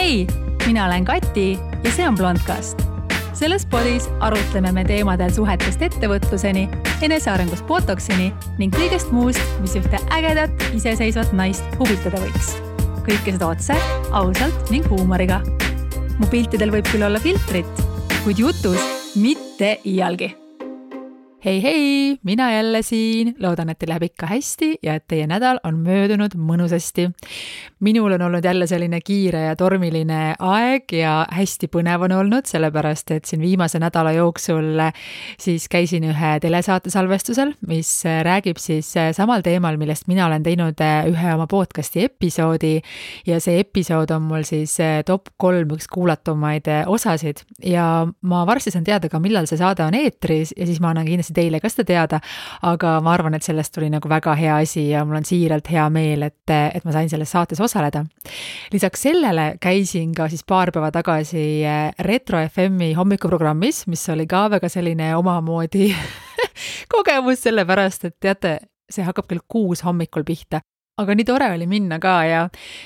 Hei, mina olen Kati ja see on Blondcast. Selles podis arutleme me teemadel suhetest ettevõtluseni, enesearengust botoksini ning kõigest muust, mis ühte ägedat, iseseisvat naist huvitada võiks. Kõike seda otse, ausalt ning huumoriga. Mu piltidel võib küll olla filtrit, kuid jutus mitte iialgi. Hei, mina jälle siin. Loodan, et teil läheb ikka hästi ja et teie nädal on möödunud mõnusasti. Minul on olnud jälle selline kiire ja tormiline aeg ja hästi põnev on olnud, sellepärast et siin viimase nädala jooksul siis käisin ühe telesaate salvestusel, mis räägib siis samal teemal, millest mina olen teinud ühe oma podcasti episoodi ja see episood on mul siis top 3 üks kuulatumaid osasid ja ma varsti saan teada ka, millal see saade on eetris ja siis ma annan kindlasti teile ka seda teada, aga ma arvan, et sellest tuli nagu väga hea asi ja mul on siiralt hea meel, et ma sain selles saates osaleda. Lisaks sellele käisin ka siis paar päeva tagasi Retro FM-i hommikuprogrammis, mis oli ka väga selline omamoodi kogemus, sellepärast, et teate, see hakkab kell 6 hommikul pihta. Aga nii tore oli minna ka ja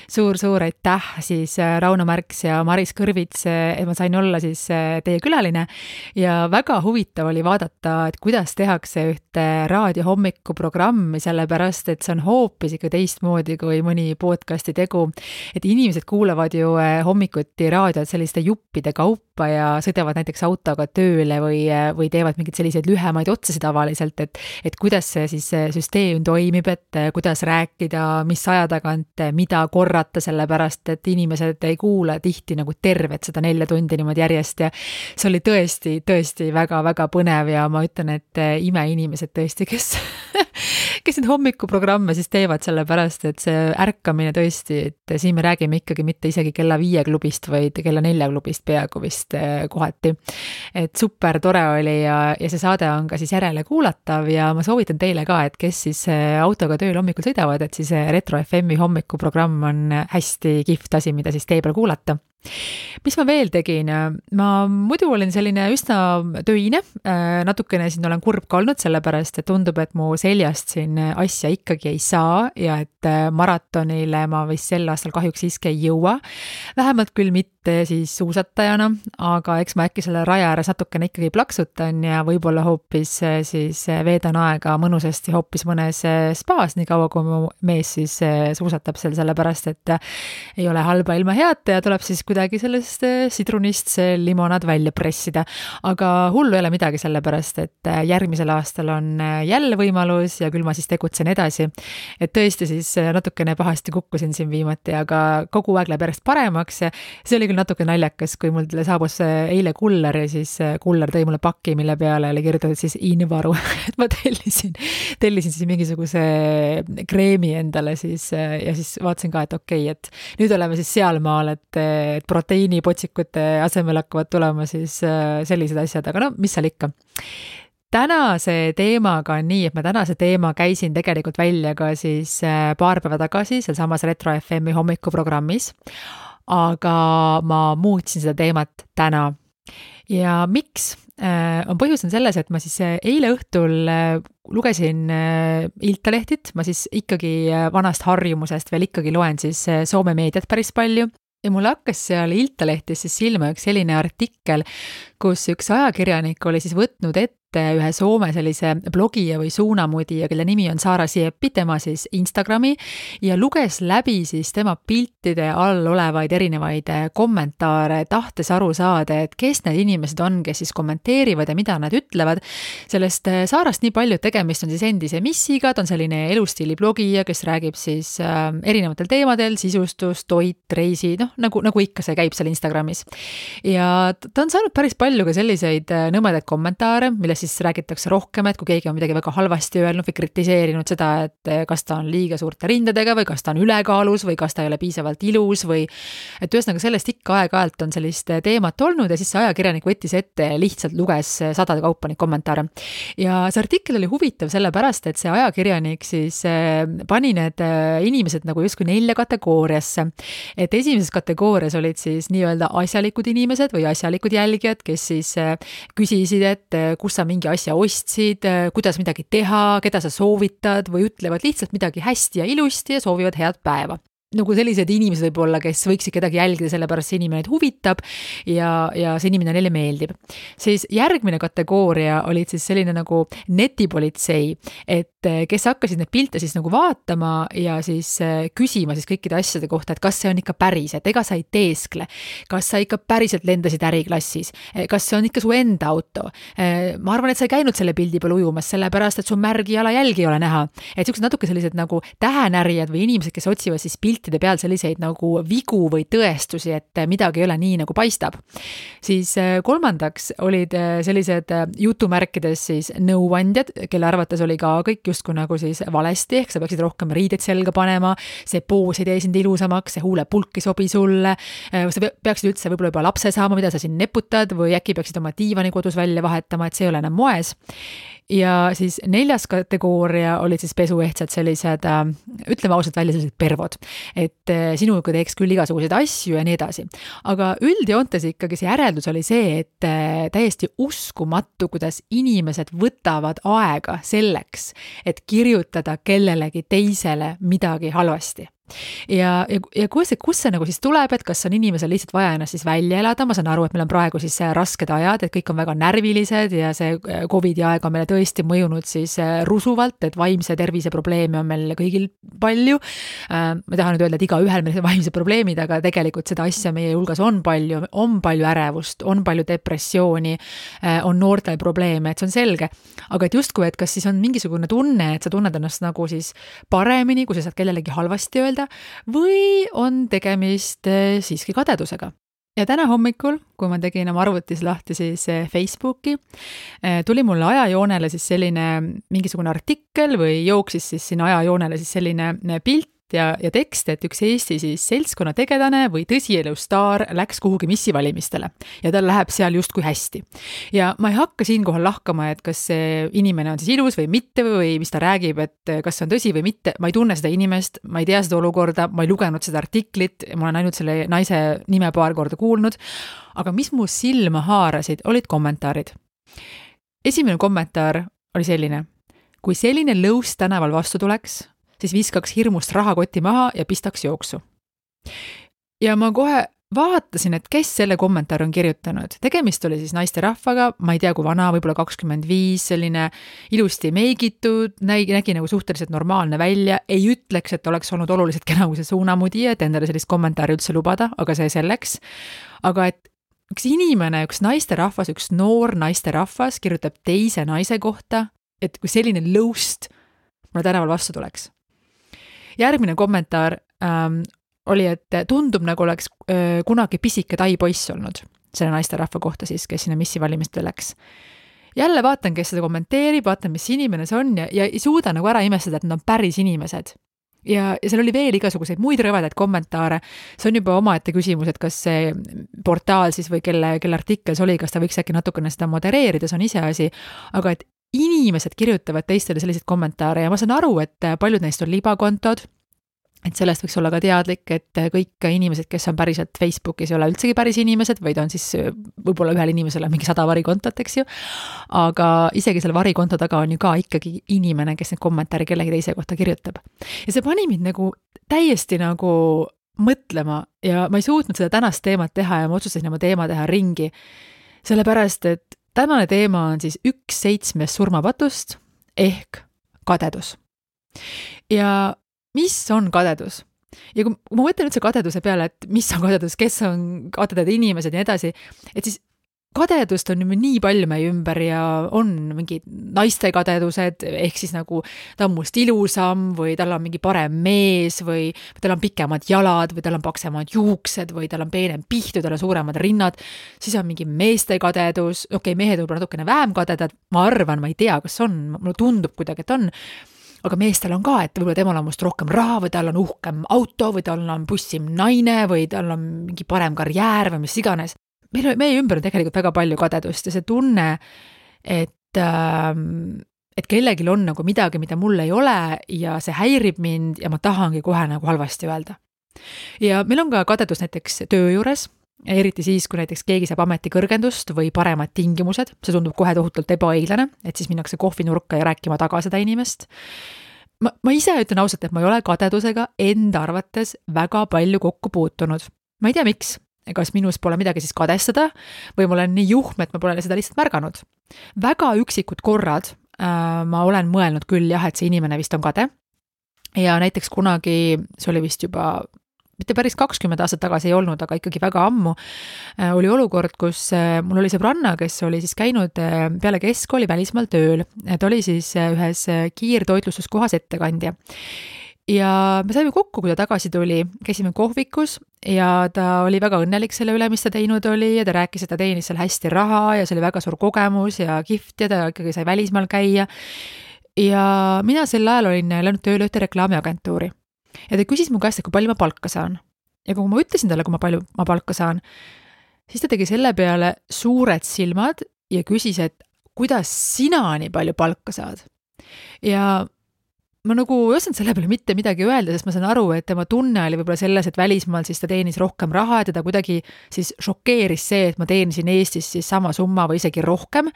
suur aitäh siis Rauno Märks ja Maris Kõrvits, et ma sain olla siis teie külaline ja väga huvitav oli vaadata, et kuidas tehakse ühte raadiohommikuprogrammi, sellepärast, et see on hoopis ikka teistmoodi kui mõni podcasti tegu, et inimesed kuulavad ju hommikuti raadiot selliste juppide kaupa ja sõidavad näiteks autoga tööle või teevad mingeid selliseid lühemaid otsasid tavaliselt, et kuidas see siis süsteem toimib, et kuidas rääkida, mis aja tagant, mida korrata, sellepärast, et inimesed ei kuula tihti nagu tervet seda 4 tundi niimoodi järjest ja see oli tõesti väga põnev ja ma ütlen, et imeinimesed tõesti, kes neid hommikuprogramme siis teevad, sellepärast, et see ärkamine tõesti, et siin me räägime ikkagi mitte isegi kella 5 klubist, vaid kella 4 klubist peaaegu vist kohati. Et super tore oli ja see saade on ka siis järele kuulatav ja ma soovitan teile ka, et kes siis autoga tööl hommikul sõidavad, et siis Retro FM-i hommikuprogramm on hästi kihvt asi, mida siis tee peal kuulata. Mis ma veel tegin? Ma muidu olin selline üsna töine, natukene siin olen kurb ka olnud, sellepärast, et tundub, et mu seljast siin asja ikkagi ei saa ja et maratonile ma vist sel aastal kahjuks siiski ei jõua. Vähemalt küll mitte siis suusatajana, aga eks ma äkki selle raja ääres natukene ikkagi plaksutan ja võib-olla hoopis siis veedan aega mõnusasti hoopis mõnes spaas, nii kaua kui mu mees siis suusatab seal, sellepärast, et ei ole halba ilma head ja tuleb siis kuidagi sellest sidrunist see limonaad välja pressida. Aga hullu ei ole midagi, sellepärast, et järgmisel aastal on jälle võimalus ja küll ma siis tegutsen edasi. Et tõesti siis natukene pahasti kukkusin siin viimati, aga kogu aeg läheb järjest paremaks. See oli küll natuke naljakas, kui mul saabus eile kuller ja siis kuller tõi mulle paki, mille peale oli kirjutatud siis invaru. Et ma tellisin siis mingisuguse kreemi endale siis ja siis vaatasin ka, et okei, et nüüd oleme siis sealmaal, et proteiinipotsikute asemel hakkavad tulema siis sellised asjad, aga no, mis seal ikka. Tänase teemaga on nii, et ma tänase teema käisin tegelikult välja ka siis paar päeva tagasi seal samas Retro FM-i hommikuprogrammis, aga ma muutsin seda teemat täna. Ja miks? On põhjus on selles, et ma siis eile õhtul lugesin Iltalehtit, ma siis ikkagi vanast harjumusest veel ikkagi loen siis Soome meediat päris palju. Ja mul hakkas seal Iltalehtis siis silma üks selline artikkel, kus üks ajakirjanik oli siis võtnud ette ühe Soome sellise blogija või suunamudija, kelle nimi on Saara Sieppi, tema siis Instagrami ja luges läbi siis tema piltide all olevaid erinevaid kommentaare, tahtes aru saada, et kes need inimesed on, kes siis kommenteerivad ja mida nad ütlevad. Sellest Saarast nii palju, et tegemist on siis endise missiga, ta on selline elustiili blogija, kes räägib siis erinevatel teemadel, sisustus, toit, reisi, nagu ikka see käib seal Instagramis. Ja ta on saanud päris palju ka selliseid nõmedaid kommentaare, milles siis räägitakse rohkem, et kui keegi on midagi väga halvasti öelnud või kritiseerinud seda, et kas ta on liiga suurte rindadega või kas ta on ülekaalus või kas ta ei ole piisavalt ilus või et ühesõnaga sellest ikka aeg-ajalt on sellist teemat olnud ja siis see ajakirjanik võttis ette ja lihtsalt luges sadade kaupa neid kommentaare. Ja see artikkel oli huvitav sellepärast, et see ajakirjanik siis pani need inimesed nagu justkui 4 kategooriasse. Et esimeses kategoorias olid siis nii-öelda asjalikud inimesed või asjalikud jälgijad, kes siis küsisid, et kus sa mingi asja ostsid, kuidas midagi teha, keda sa soovitad või ütlevad lihtsalt midagi hästi ja ilusti ja soovivad head päeva. nagu sellised inimesed võib-olla, kes võiksid kedagi jälgida, sellepärast see inimene neid huvitab ja see inimene neile meeldib. Siis järgmine kategooria olid siis selline nagu netipolitsei, et kes hakkasid neid pilte siis nagu vaatama ja siis küsima siis kõikide asjade kohta, et kas see on ikka päris, et ega sa ei teeskle, kas sa ikka päriselt lendasid äriklassis, kas see on ikka su enda auto. Ma arvan, et sa ei käinud selle pildi peal ujumas, sellepärast, et su märgi jalajälgi ei ole näha. Et sellised natuke sellised nagu tähenärijad või inimesed, kes otsivad siis piltide peal selliseid nagu vigu või tõestusi, et midagi ei ole nii, nagu paistab. Siis kolmandaks olid sellised jutumärkides siis nõuandjad, kelle arvates oli ka kõik justkui nagu siis valesti, ehk sa peaksid rohkem riided selga panema, see poos ei tee sind ilusamaks, see huulepulk ei sobi sulle, sa peaksid üldse võib-olla juba lapse saama, mida sa siin neputad või äkki peaksid oma diivani kodus välja vahetama, et see ei ole enam moes. Ja siis 4. kategooria olid siis pesuehtsad sellised, ütleme ausalt välja, sellised pervod, et sinuga teeks küll igasuguseid asju ja nii edasi. Aga üldjoontes ikkagi see järeldus oli see, et täiesti uskumatu, kuidas inimesed võtavad aega selleks, et kirjutada kellelegi teisele midagi halvasti. Ja kus see nagu siis tuleb, et kas on inimesel lihtsalt vaja ennast siis välja elada, ma saan aru, et meil on praegu siis rasked ajad, et kõik on väga närvilised ja see COVID-i aeg on meile tõesti mõjunud siis rusuvalt, et vaimse tervise probleeme on meil kõigil palju. Ma tahan nüüd öelda, et iga ühel meil vaimse probleemid, aga tegelikult seda asja meie hulgas on palju ärevust, on palju depressiooni, on noortel probleeme, et see on selge. Aga et justkui, et kas siis on mingisugune tunne, et sa tunned ennast nagu siis paremini, kui sa saad kellelegi halvasti öelda, või on tegemist siiski kadedusega. Ja täna hommikul, kui ma tegin oma arvutis lahti siis Facebooki, tuli mulle ajajoonele siis selline mingisugune artikkel või jooksis siis sinna ajajoonele siis selline pilt ja tekst, et üks Eesti siis seltskonna tegelane või tõsielu staar läks kuhugi missivalimistele ja tal läheb seal justkui hästi. Ja ma ei hakka siinkohal lahkama, et kas see inimene on siis ilus või mitte või mis ta räägib, et kas see on tõsi või mitte. Ma ei tunne seda inimest, ma ei tea seda olukorda, ma ei lugenud seda artiklit, ma olen ainult selle naise nime paar korda kuulnud, aga mis mu silma haarasid, olid kommentaarid. Esimene kommentaar oli selline: kui selline lõus tänaval vastu tuleks, siis viskaks hirmust rahakoti maha ja pistaks jooksu. Ja ma kohe vaatasin, et kes selle kommentaari on kirjutanud. Tegemist oli siis naisterahvaga, ma ei tea kui vana, võib-olla 25, selline ilusti meigitud, nägi nagu suhteliselt normaalne välja, ei ütleks, et oleks olnud oluliselt kena kui see suunamudija, et endale sellist kommentaari üldse lubada, aga see selleks. Aga et üks inimene, üks naisterahvas, üks noor naisterahvas kirjutab teise naise kohta, et kui selline lõust mulle tänaval vastu tuleks. Järgmine kommentaar oli, et tundub nagu oleks kunagi pisike tai poiss olnud selle naisterahva kohta siis, kes sinna missivalimistele läks. Jälle vaatan, kes seda kommenteerib, vaatan, mis inimene see on ja ei suuda nagu ära imestada, et nad on päris inimesed. Ja seal oli veel igasuguseid muid rõvedaid kommentaare. See on juba omaette küsimus, et kas see portaal siis või kelle artikkel see oli, kas ta võiks äkki natukene seda modereerida, see on ise asi, aga et inimesed kirjutavad teistele selliseid kommentaare ja ma saan aru, et paljud neist on libakontod, et sellest võiks olla ka teadlik, et kõik inimesed, kes on päriselt Facebookis, ei ole üldsegi päris inimesed, vaid on siis võib-olla ühel inimesel on mingi 100 varikontot, eks ju, aga isegi selle varikonto taga on ju ka ikkagi inimene, kes need kommentaari kellegi teise kohta kirjutab. Ja see pani mind nagu täiesti nagu mõtlema ja ma ei suutnud seda tänast teemat teha ja ma otsustasin oma teema teha ringi, sellepärast, et tänane teema on siis 1/7 surmapatust ehk kadedus. Ja mis on kadedus? Ja kui ma mõtlen üldse kadeduse peale, et mis on kadedus, kes on kadedad inimesed ja nii edasi, et siis kadedust on nii palju meie ümber ja on mingid naiste kadedused, ehk siis nagu ta on must ilusam või tal on mingi parem mees või tal on pikemad jalad või tal on paksemad juuksed või tal on peenem pihtu, tal on suuremad rinnad, siis on mingi meeste kadedus, mehed võib-olla natukene vähem kadedad, ma arvan, ma ei tea, kas on, mulle tundub kuidagi, et on, aga meestel on ka, et võib-olla temal on must rohkem raha või tal on uhkem auto või tal on bussim naine või tal on mingi parem karjäär või mis iganes. Meie ümber on tegelikult väga palju kadedust ja see tunne, et kellelgi on nagu midagi, mida mul ei ole ja see häirib mind ja ma tahangi kohe nagu halvasti öelda. Ja meil on ka kadedus näiteks töö juures, eriti siis, kui näiteks keegi saab ametikõrgendust või paremad tingimused, see tundub kohe tohutult ebaõiglane, et siis minnakse kohvinurka ja rääkima taga seda inimest. ma ise ütlen ausalt, et ma ei ole kadedusega enda arvates väga palju kokku puutunud. Ma ei tea, miks. Kas minus pole midagi siis kadestada või ma olen nii juhm, et ma pole seda lihtsalt märganud. Väga üksikud korrad ma olen mõelnud küll jah, et see inimene vist on kade. Ja näiteks kunagi, see oli vist juba mitte päris 20 aastat tagasi ei olnud, aga ikkagi väga ammu, oli olukord, kus mul oli sõbranna, kes oli siis käinud peale keskkooli välismaal tööl. Ta oli siis ühes kiirtoitlustuskohas ettekandja. Ja me saime kokku, kui ta tagasi tuli, käisime kohvikus ja ta oli väga õnnelik selle üle, mis ta teinud oli ja ta rääkis, et ta teenis seal hästi raha ja see oli väga suur kogemus ja kihvt ja ta ikkagi sai välismaal käia. Ja mina sel ajal olin läinud tööle ühte reklaamiagentuuri. Ja ta küsis mu käest, et kui palju ma palka saan. Ja kui ma ütlesin talle, kui ma palju ma palka saan, siis ta tegi selle peale suured silmad ja küsis, et kuidas sina nii palju palka saad. Ja ma nagu ei osanud selle peale mitte midagi öelda, sest ma saan aru, et tema tunne oli võib-olla selles, et välismaal siis ta teenis rohkem raha ja teda kuidagi siis šokeeris see, et ma teenisin Eestis siis sama summa või isegi rohkem.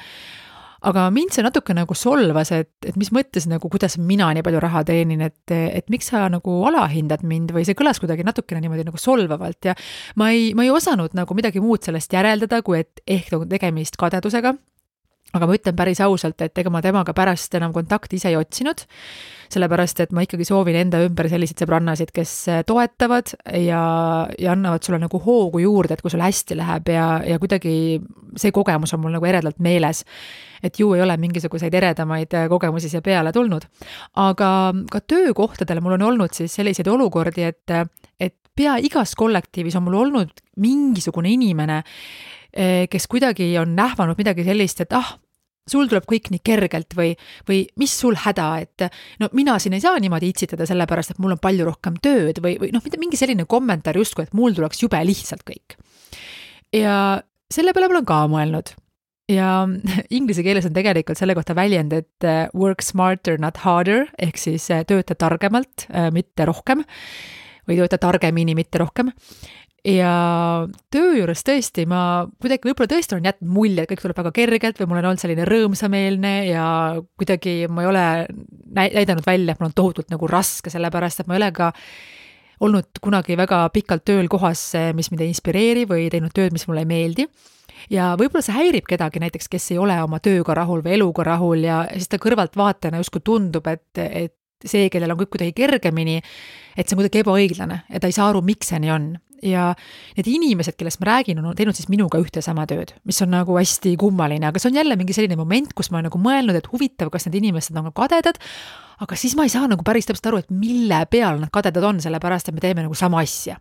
Aga mind see natuke nagu solvas, et mis mõttes nagu, kuidas mina nii palju raha teenin, et miks sa nagu alahindad mind või see kõlas kuidagi natukene niimoodi nagu solvavalt ja ma ei osanud nagu midagi muud sellest järeldada, kui et ehk tegemist kadedusega. Aga ma ütlen päris ausalt, et ega ma temaga pärast enam kontakti ise ei otsinud, sellepärast, et ma ikkagi soovin enda ümber selliseid sõbrannasid, kes toetavad ja annavad sulle nagu hoogu juurde, et kui sul hästi läheb ja kuidagi see kogemus on mul nagu eredalt meeles, et ju ei ole mingisuguseid eredamaid kogemusi siia peale tulnud. Aga ka töökohtadel mul on olnud siis selliseid olukordi, et pea igas kollektiivis on mul olnud mingisugune inimene, kes kuidagi on nähvanud midagi sellist, et sul tuleb kõik nii kergelt või mis sul häda, et no mina siin ei saa niimoodi itsitada sellepärast, et mul on palju rohkem tööd või noh, mingi selline kommentaar justkui, et mul tuleks jube lihtsalt kõik. Ja selle peale ma olen ka mõelnud. Ja inglise keeles on tegelikult selle kohta väljend, et work smarter, not harder, ehk siis tööta targemalt, mitte rohkem, või tööta targemini, mitte rohkem. Ja töö juures tõesti, ma kuidagi võib-olla tõesti olen jätnud mulje, et kõik tuleb väga kergelt või mul on olnud selline rõõmsameelne ja kuidagi ma ei ole näidanud välja, et mul on tohutult nagu raske, sellepärast, et ma ei ole ka olnud kunagi väga pikalt tööl kohas, mis mind ei inspireeri või teinud tööd, mis mulle ei meeldi. Ja võib-olla see häirib kedagi näiteks, kes ei ole oma tööga rahul või eluga rahul ja siis ta kõrvalt vaatena justkui tundub, et see, kellel on kõik kuidagi kergemini, et see on kuidagi ebaõiglane ja ta ei saa aru, miks see nii on. Ja need inimesed, kellest ma räägin, on teinud siis minuga ühte sama tööd, mis on nagu hästi kummaline, aga see on jälle mingi selline moment, kus ma olen nagu mõelnud, et huvitav, kas need inimesed on kadedad, aga siis ma ei saa nagu päris täpselt aru, et mille peal nad kadedad on, sellepärast, et me teeme nagu sama asja.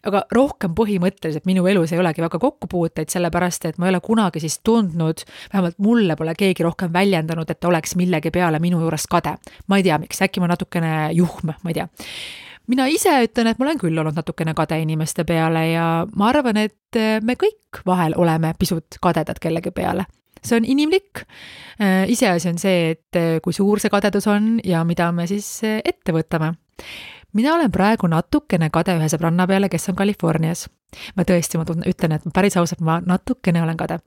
Aga rohkem põhimõtteliselt minu elus ei olegi väga kokkupuuteid, sellepärast, et ma ei ole kunagi siis tundnud, vähemalt mulle pole keegi rohkem väljendanud, et oleks millegi peale minu juures kade. Ma ei tea, miks, äkki ma natukene juhm, ma ei tea. Mina ise ütlen, et ma olen küll olnud natukene kade inimeste peale ja ma arvan, et me kõik vahel oleme pisut kadedad kellegi peale. See on inimlik. Iseasi on see, et kui suur see kadedus on ja mida me siis ette võtame. Mina olen praegu natukene kade ühe sõbranna peale, kes on Californias. Ma tõesti, ma ütlen, et päris ausalt, ma natukene olen kade.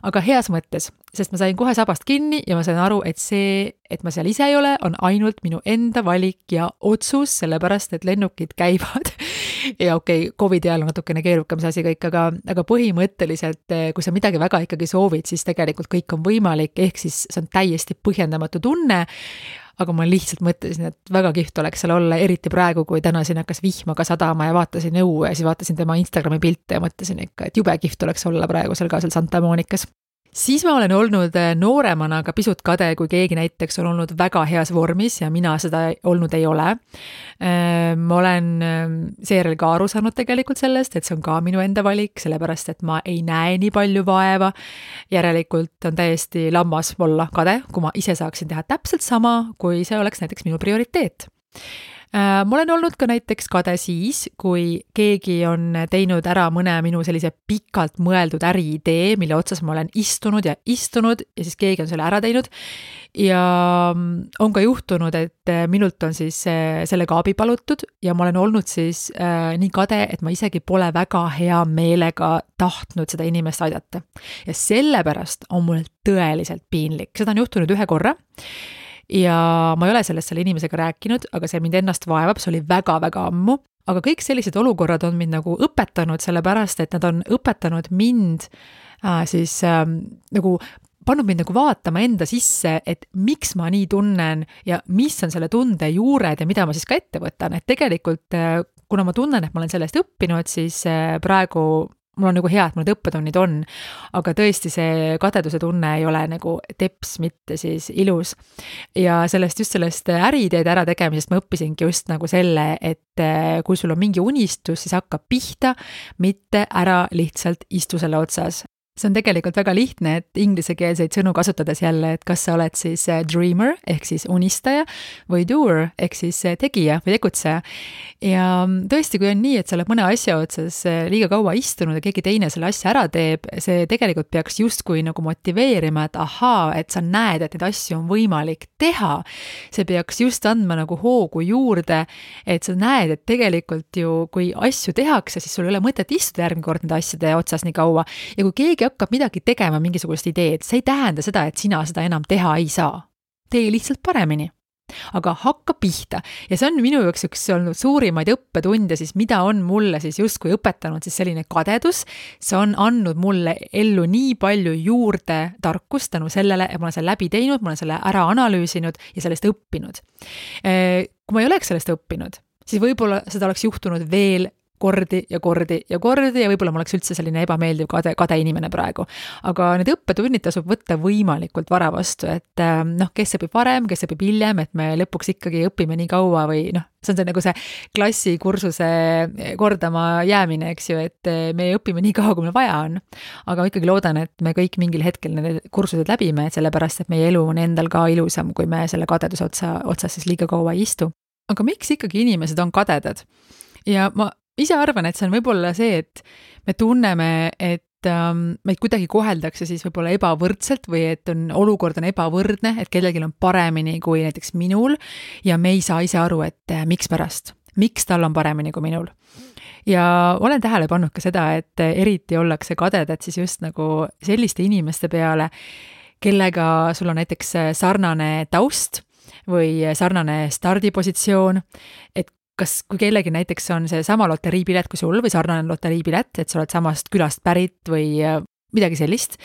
Aga heas mõttes, sest ma sain kohe sabast kinni ja ma sain aru, et see, et ma seal ise ei ole, on ainult minu enda valik ja otsus, sellepärast, et lennukid käivad. Ja okei, COVID ajal on natukene keerukam see asi kõik, aga põhimõtteliselt, kui sa midagi väga ikkagi soovid, siis tegelikult kõik on võimalik, ehk siis see on täiesti põhjendamatu tunne. Aga ma lihtsalt mõtlesin, et väga kihvt oleks seal olla, eriti praegu, kui täna siin hakkas vihma ka sadama ja vaatasin õue ja siis vaatasin tema Instagrami pilte ja mõtlesin ikka, et jube kihvt oleks olla praegu seal ka seal Santa Monikas. Siis ma olen olnud nooremana ka pisut kade, kui keegi näiteks on olnud väga heas vormis ja mina seda olnud ei ole. Ma olen seejärel ka aru saanud tegelikult sellest, et see on ka minu enda valik, sellepärast, et ma ei näe nii palju vaeva. Järelikult on täiesti lammas olla kade, kui ma ise saaksin teha täpselt sama, kui see oleks näiteks minu prioriteet. Ma olen olnud ka näiteks kade siis, kui keegi on teinud ära mõne minu sellise pikalt mõeldud äriidee, mille otsas ma olen istunud ja siis keegi on selle ära teinud ja on ka juhtunud, et minult on siis sellega abi palutud ja ma olen olnud siis nii kade, et ma isegi pole väga hea meelega tahtnud seda inimest aidata. Ja sellepärast on mul tõeliselt piinlik. Seda on juhtunud ühe korra. ja ma ei ole sellest selle inimesega rääkinud, aga see mind ennast vaevab, see oli väga-väga ammu. Aga kõik sellised olukorrad on mind nagu õpetanud, sellepärast et nad on õpetanud mind nagu pannud mind nagu vaatama enda sisse, et miks ma nii tunnen ja mis on selle tunde juured ja mida ma siis ka ette võtan. Et tegelikult, kuna ma tunnen, et ma olen sellest õppinud, siis praegu mul on nagu hea, et mul need õppetunnid on, aga tõesti see kadeduse tunne ei ole nagu teps, mitte siis ilus. Ja just sellest äriideede ära tegemisest ma õppisingi just nagu selle, et kui sul on mingi unistus, siis hakkab pihta, mitte ära lihtsalt istu selle otsas. See on tegelikult väga lihtne, et inglisekeelseid sõnu kasutades jälle, et kas sa oled siis dreamer ehk siis unistaja või doer ehk siis tegija või tegutseja. Ja tõesti, kui on nii, et sa oled mõne asja otsas liiga kaua istunud ja keegi teine selle asja ära teeb, see tegelikult peaks justkui nagu motiveerima, et ahaa, et sa näed, et neid asju on võimalik teha. See peaks just andma nagu hoogu juurde, et sa näed, et tegelikult ju, kui asju tehakse, siis sul ei ole mõtet istuda järgmine kord nende asjade otsas nii kaua. Ja kui keegi hakkab midagi tegema, mingisugust ideed, see ei tähenda seda, et sina seda enam teha ei saa. Tee lihtsalt paremini. Aga hakka pihta. Ja see on minu jaoks üks olnud suurimaid õppetunde, siis mida on mulle siis justkui õpetanud siis selline kadedus. See on andnud mulle ellu nii palju juurde tarkust tänu sellele, et ma olen selle läbi teinud, ma olen selle ära analüüsinud ja sellest õppinud. Kui ma ei oleks sellest õppinud, siis võib-olla seda oleks juhtunud veel kordi ja võib-olla ma oleks üldse selline ebameeldiv kade inimene praegu. Aga need õppetunnid tasub võtta võimalikult vara vastu, et kes õpib varem, kes õpib hiljem, et me lõpuks ikkagi õpime nii kaua või see on see nagu see klassikursuse kordama jäämine, eks ju, et me õpime nii kaua, kui meil vaja on. Aga ma ikkagi loodan, et me kõik mingil hetkel need kursused läbime, sellepärast, et meie elu on endal ka ilusam, kui me selle kadeduse otsas siis liiga kaua ei istu. Aga miks ikkagi inimesed on kadedad? Ja ma ise arvan, et see on võib-olla see, et me tunneme, et meid kuidagi koheldakse siis võib-olla ebavõrdselt või et olukord on ebavõrdne, et kellelgi on paremini kui näiteks minul ja me ei saa ise aru, et miks pärast, miks tal on paremini kui minul. Ja olen tähele pannud ka seda, et eriti ollakse kadedad siis just nagu selliste inimeste peale, kellega sul on näiteks sarnane taust või sarnane stardipositsioon, et kui kellegi näiteks on see sama loteriipilet kui sul või sarnane loteriipilet, et sa oled samast külast pärit või midagi sellist,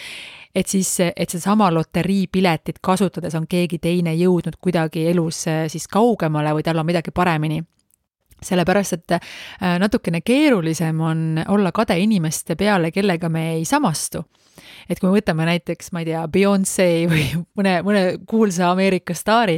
et see sama loteriipiletit kasutades on keegi teine jõudnud kuidagi elus siis kaugemale või tal on midagi paremini. Sellepärast, et natukene keerulisem on olla kade inimeste peale, kellega me ei samastu. Et kui me võtame näiteks, ma ei tea, Beyoncé või mõne kuulsa Ameerika staari,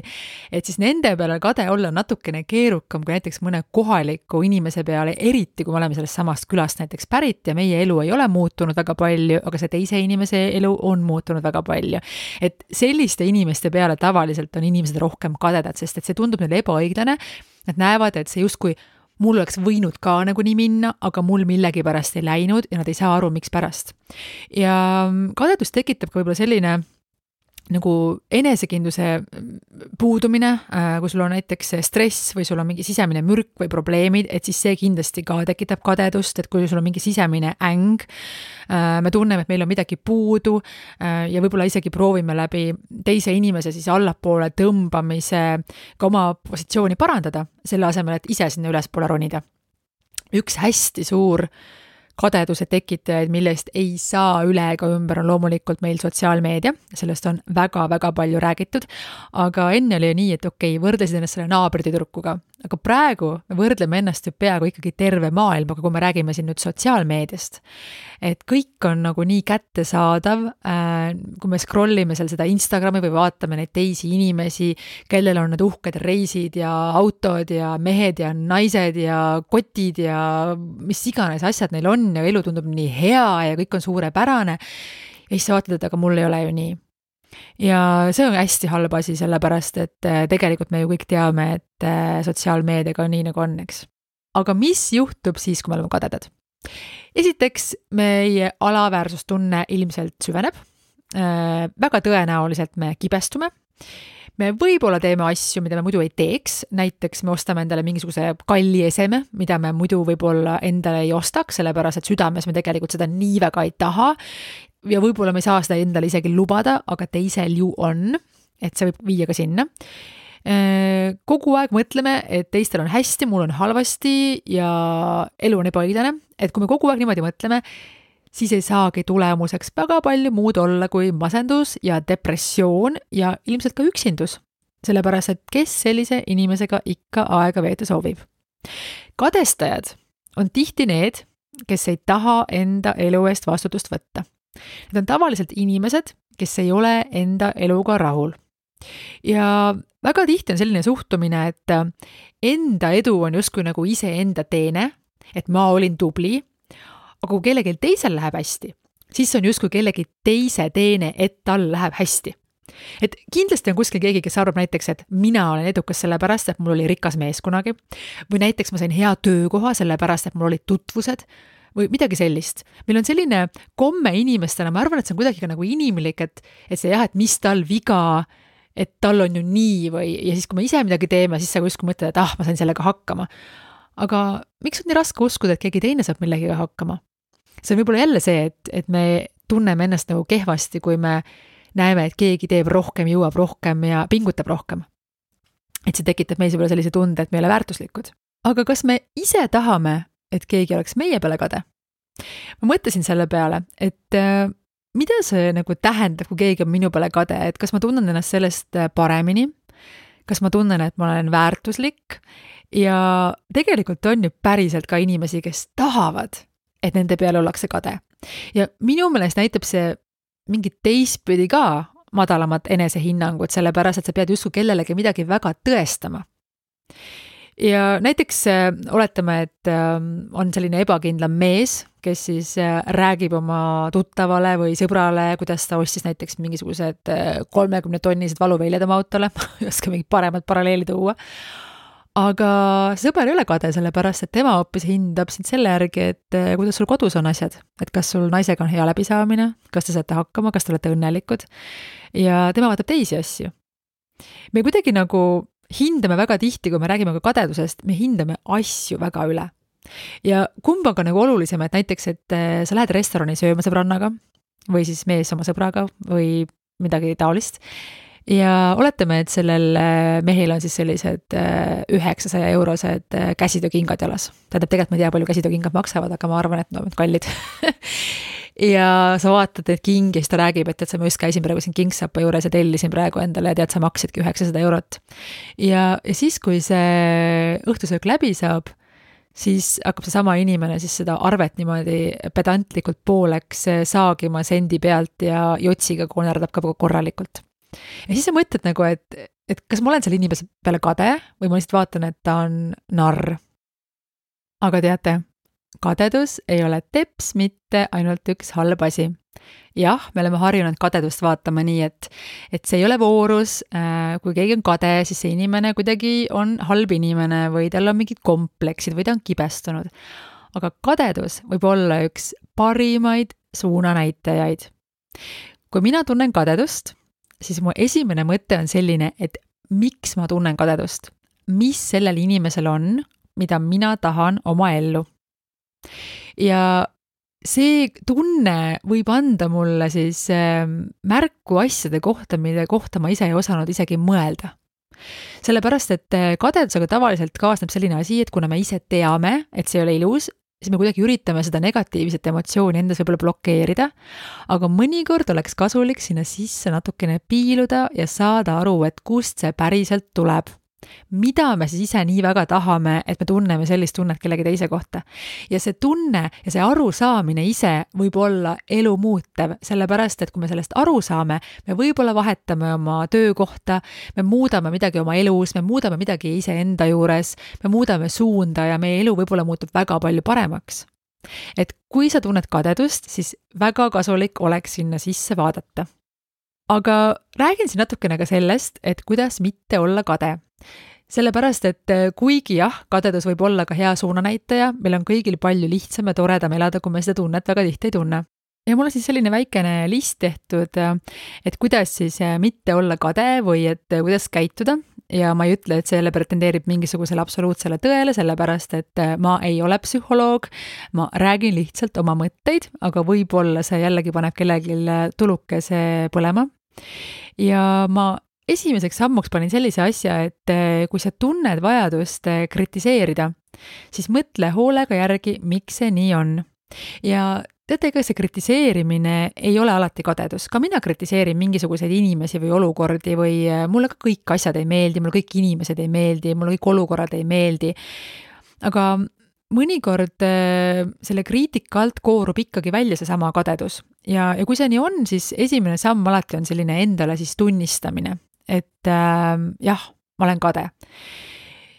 et siis nende peale kade olla natukene keerukam kui näiteks mõne kohaliku inimese peale, eriti kui me oleme sellest samast külast näiteks pärit ja meie elu ei ole muutunud väga palju, aga see teise inimese elu on muutunud väga palju. Et selliste inimeste peale tavaliselt on inimesed rohkem kadedad, sest et see tundub neile ebaõiglane. Nad näevad, et see justkui mul oleks võinud ka nagu nii minna, aga mul millegi pärast ei läinud ja nad ei saa aru, miks pärast. Ja kadedus tekitab ka võib-olla selline nagu enesekindluse puudumine, kui sul on näiteks stress või sul on mingi sisemine mürk või probleemid, et siis see kindlasti ka tekitab kadedust, et kui sul on mingi sisemine äng, me tunneme, et meil on midagi puudu ja võib-olla isegi proovime läbi teise inimese siis allapoole tõmbamise ka oma positsiooni parandada, selle asemel, et ise sinna ülespoole ronida. Üks hästi suur kadeduse tekitajaid, millest ei saa üle ega ümber, on loomulikult meil sotsiaalmeedia, sellest on väga-väga palju räägitud, aga enne oli nii, et okei, võrdlesid ennast selle naabritüdrukuga, aga praegu me võrdleme ennast ju peaaegu ikkagi terve maailmaga, kui me räägime siin nüüd sotsiaalmeediast. Et kõik on nagu nii kättesaadav, kui me scrollime seal seda Instagrami või vaatame neid teisi inimesi, kellel on need uhked reisid ja autod ja mehed ja naised ja kotid ja mis iganes asjad neil on ja elu tundub nii hea ja kõik on suurepärane. Ja siis sa vaatad, et aga mul ei ole ju nii. Ja see on hästi halb asi, sellepärast, et tegelikult me ju kõik teame, et sotsiaalmeediaga on nii nagu on, eks. Aga mis juhtub siis, kui me oleme kadedad? Esiteks, meie alaväärsustunne ilmselt süveneb. Väga tõenäoliselt me kibestume. Me võib-olla teeme asju, mida me muidu ei teeks, näiteks me ostame endale mingisuguse kalli eseme, mida me muidu võib-olla endale ei ostaks, sellepärast et südames me tegelikult seda nii väga ei taha ja võib-olla me ei saa seda endale isegi lubada, aga teisel ju on. et see võib viia ka sinna. Kogu aeg mõtleme, et teistel on hästi, mul on halvasti ja elu on ebaõiglane, et kui me kogu aeg niimoodi mõtleme, siis ei saagi tulemuseks väga palju muud olla kui masendus ja depressioon ja ilmselt ka üksindus. Sellepärast, et kes sellise inimesega ikka aega veeta soovib. Kadestajad on tihti need, kes ei taha enda elu eest vastutust võtta. Need on tavaliselt inimesed, kes ei ole enda eluga rahul. Ja väga tihti on selline suhtumine, et enda edu on justkui nagu ise enda teene, et ma olin tubli, aga kui kellelgi teisel läheb hästi, siis on justkui kellegi teise teene, et tal läheb hästi. Et kindlasti on kuskil keegi, kes arvab näiteks, et mina olen edukas sellepärast, et mul oli rikas mees kunagi, või näiteks ma sain hea töökoha sellepärast, et mul olid tutvused, või midagi sellist. Meil on selline komme inimestena, ma arvan, et see on kuidagi nagu inimlik, et see jah, et mis tal viga, et tal on ju nii või, ja siis kui me ise midagi teeme, siis sa kuskil mõtled, et ma sain sellega hakkama. Aga miks on nii raske uskuda, et keegi teine saab millegiga hakkama? See on võib-olla jälle see, et me tunneme ennast nagu kehvasti, kui me näeme, et keegi teeb rohkem, jõuab rohkem ja pingutab rohkem. Et see tekitab meis võib-olla sellise tunde, et me ei ole väärtuslikud. Aga kas me ise tahame, et keegi oleks meie peale kade? Ma mõtlesin selle peale, et mida see nagu tähendab, kui keegi on minu peale kade, et kas ma tunnen ennast sellest paremini, kas ma tunnen, et ma olen väärtuslik ja tegelikult on ju päriselt ka inimesi, kes tahavad, et nende peale ollakse kade. Ja minu meelest näitab see mingit teistpidi ka madalamat enesehinnangut, sellepärast, et sa pead justkui kellelegi midagi väga tõestama. Ja näiteks oletame, et on selline ebakindlam mees, kes siis räägib oma tuttavale või sõbrale, kuidas ta ostis näiteks mingisugused 30-tonnised valuväljad oma autole, ei oska mingit paremat paralleeli tuua. Aga sõber ei ole kade, sellepärast, et tema hoopis hindab sind selle järgi, et kuidas sul kodus on asjad, et kas sul naisega on hea läbisaamine, kas te saate hakkama, kas te olete õnnelikud ja tema vaatab teisi asju. Me kuidagi nagu hindame väga tihti, kui me räägime ka kadedusest, me hindame asju väga üle. Ja kumb on ka nagu olulisem, et näiteks, et sa lähed restorani sööma sõbrannaga või siis mees oma sõbraga või midagi taolist. Ja oletame, et sellel mehel on siis sellised 900 eurosed käsitöökingad jalas. Tegelikult ma ei tea, palju käsitöökingad maksavad, aga ma arvan, et nad on kallid. Ja sa vaatad, et king ja siis ta räägib, et sa ma just käisin praegu siin Kingsapa juures ja tellisin praegu endale ja tead, sa maksidki 900 eurot. Ja siis, kui see õhtusöök läbi saab, siis hakkab see sama inimene siis seda arvet niimoodi pedantlikult pooleks saagima sendi pealt ja jotsiga konerdab ka korralikult. Ja siis sa mõtled nagu, et kas ma olen selle inimese peale kade või ma lihtsalt vaatan, et ta on narr. Aga teate, kadedus ei ole teps mitte ainult üks halb asi. Jah, me oleme harjunud kadedust vaatama nii, et see ei ole voorus, kui keegi on kade, siis see inimene kuidagi on halb inimene või tal on mingid kompleksid või ta on kibestunud. Aga kadedus võib olla üks parimaid suunanäitajaid. Kui mina tunnen kadedust, siis mu esimene mõte on selline, et miks ma tunnen kadedust? Mis sellel inimesel on, mida mina tahan oma ellu? Ja see tunne võib anda mulle siis märku asjade kohta, mille kohta ma ise ei osanud isegi mõelda. Sellepärast, et kadedusega tavaliselt kaasneb selline asi, et kuna me ise teame, et see ei ole ilus, siis me kuidagi üritame seda negatiivset emotsiooni endas võib-olla blokeerida, aga mõnikord oleks kasulik sinna sisse natukene piiluda ja saada aru, et kust see päriselt tuleb. Mida me siis ise nii väga tahame, et me tunneme sellist tunnet kellegi teise kohta. Ja see tunne ja see arusaamine ise võib olla elu muutev, sellepärast, et kui me sellest aru saame, me võib-olla vahetame oma töökohta, me muudame midagi oma elus, me muudame midagi ise enda juures, me muudame suunda ja meie elu võib-olla muutub väga palju paremaks. Et kui sa tunned kadedust, siis väga kasulik oleks sinna sisse vaadata. Aga räägin siin natukene ka sellest, et kuidas mitte olla kade. Sellepärast, et kuigi jah, kadedus võib olla ka hea suunanäitaja, meil on kõigil palju lihtsam ja toredam elada, kui me seda tunnet väga tihti ei tunne. Ja mul on siis selline väikene list tehtud, et kuidas siis mitte olla kade või et kuidas käituda. Ja ma ei ütle, et see jälle pretendeerib mingisugusele absoluutsele tõele, sellepärast, et ma ei ole psühholoog, ma räägin lihtsalt oma mõtteid, aga võib-olla see jällegi paneb kellelgi tulukese põlema. Ja ma esimeseks sammuks panin sellise asja, et kui sa tunned vajadust kritiseerida, siis mõtle hoolega järgi, miks see nii on. Ja teate, ega see kritiseerimine ei ole alati kadedus. Ka mina kritiseerin mingisuguseid inimesi või olukordi või mulle ka kõik asjad ei meeldi, mulle kõik inimesed ei meeldi, mulle kõik olukorrad ei meeldi. Aga mõnikord selle kriitika alt koorub ikkagi välja see sama kadedus. Ja kui see nii on, siis esimene samm alati on selline endale siis tunnistamine, et jah, ma olen kade.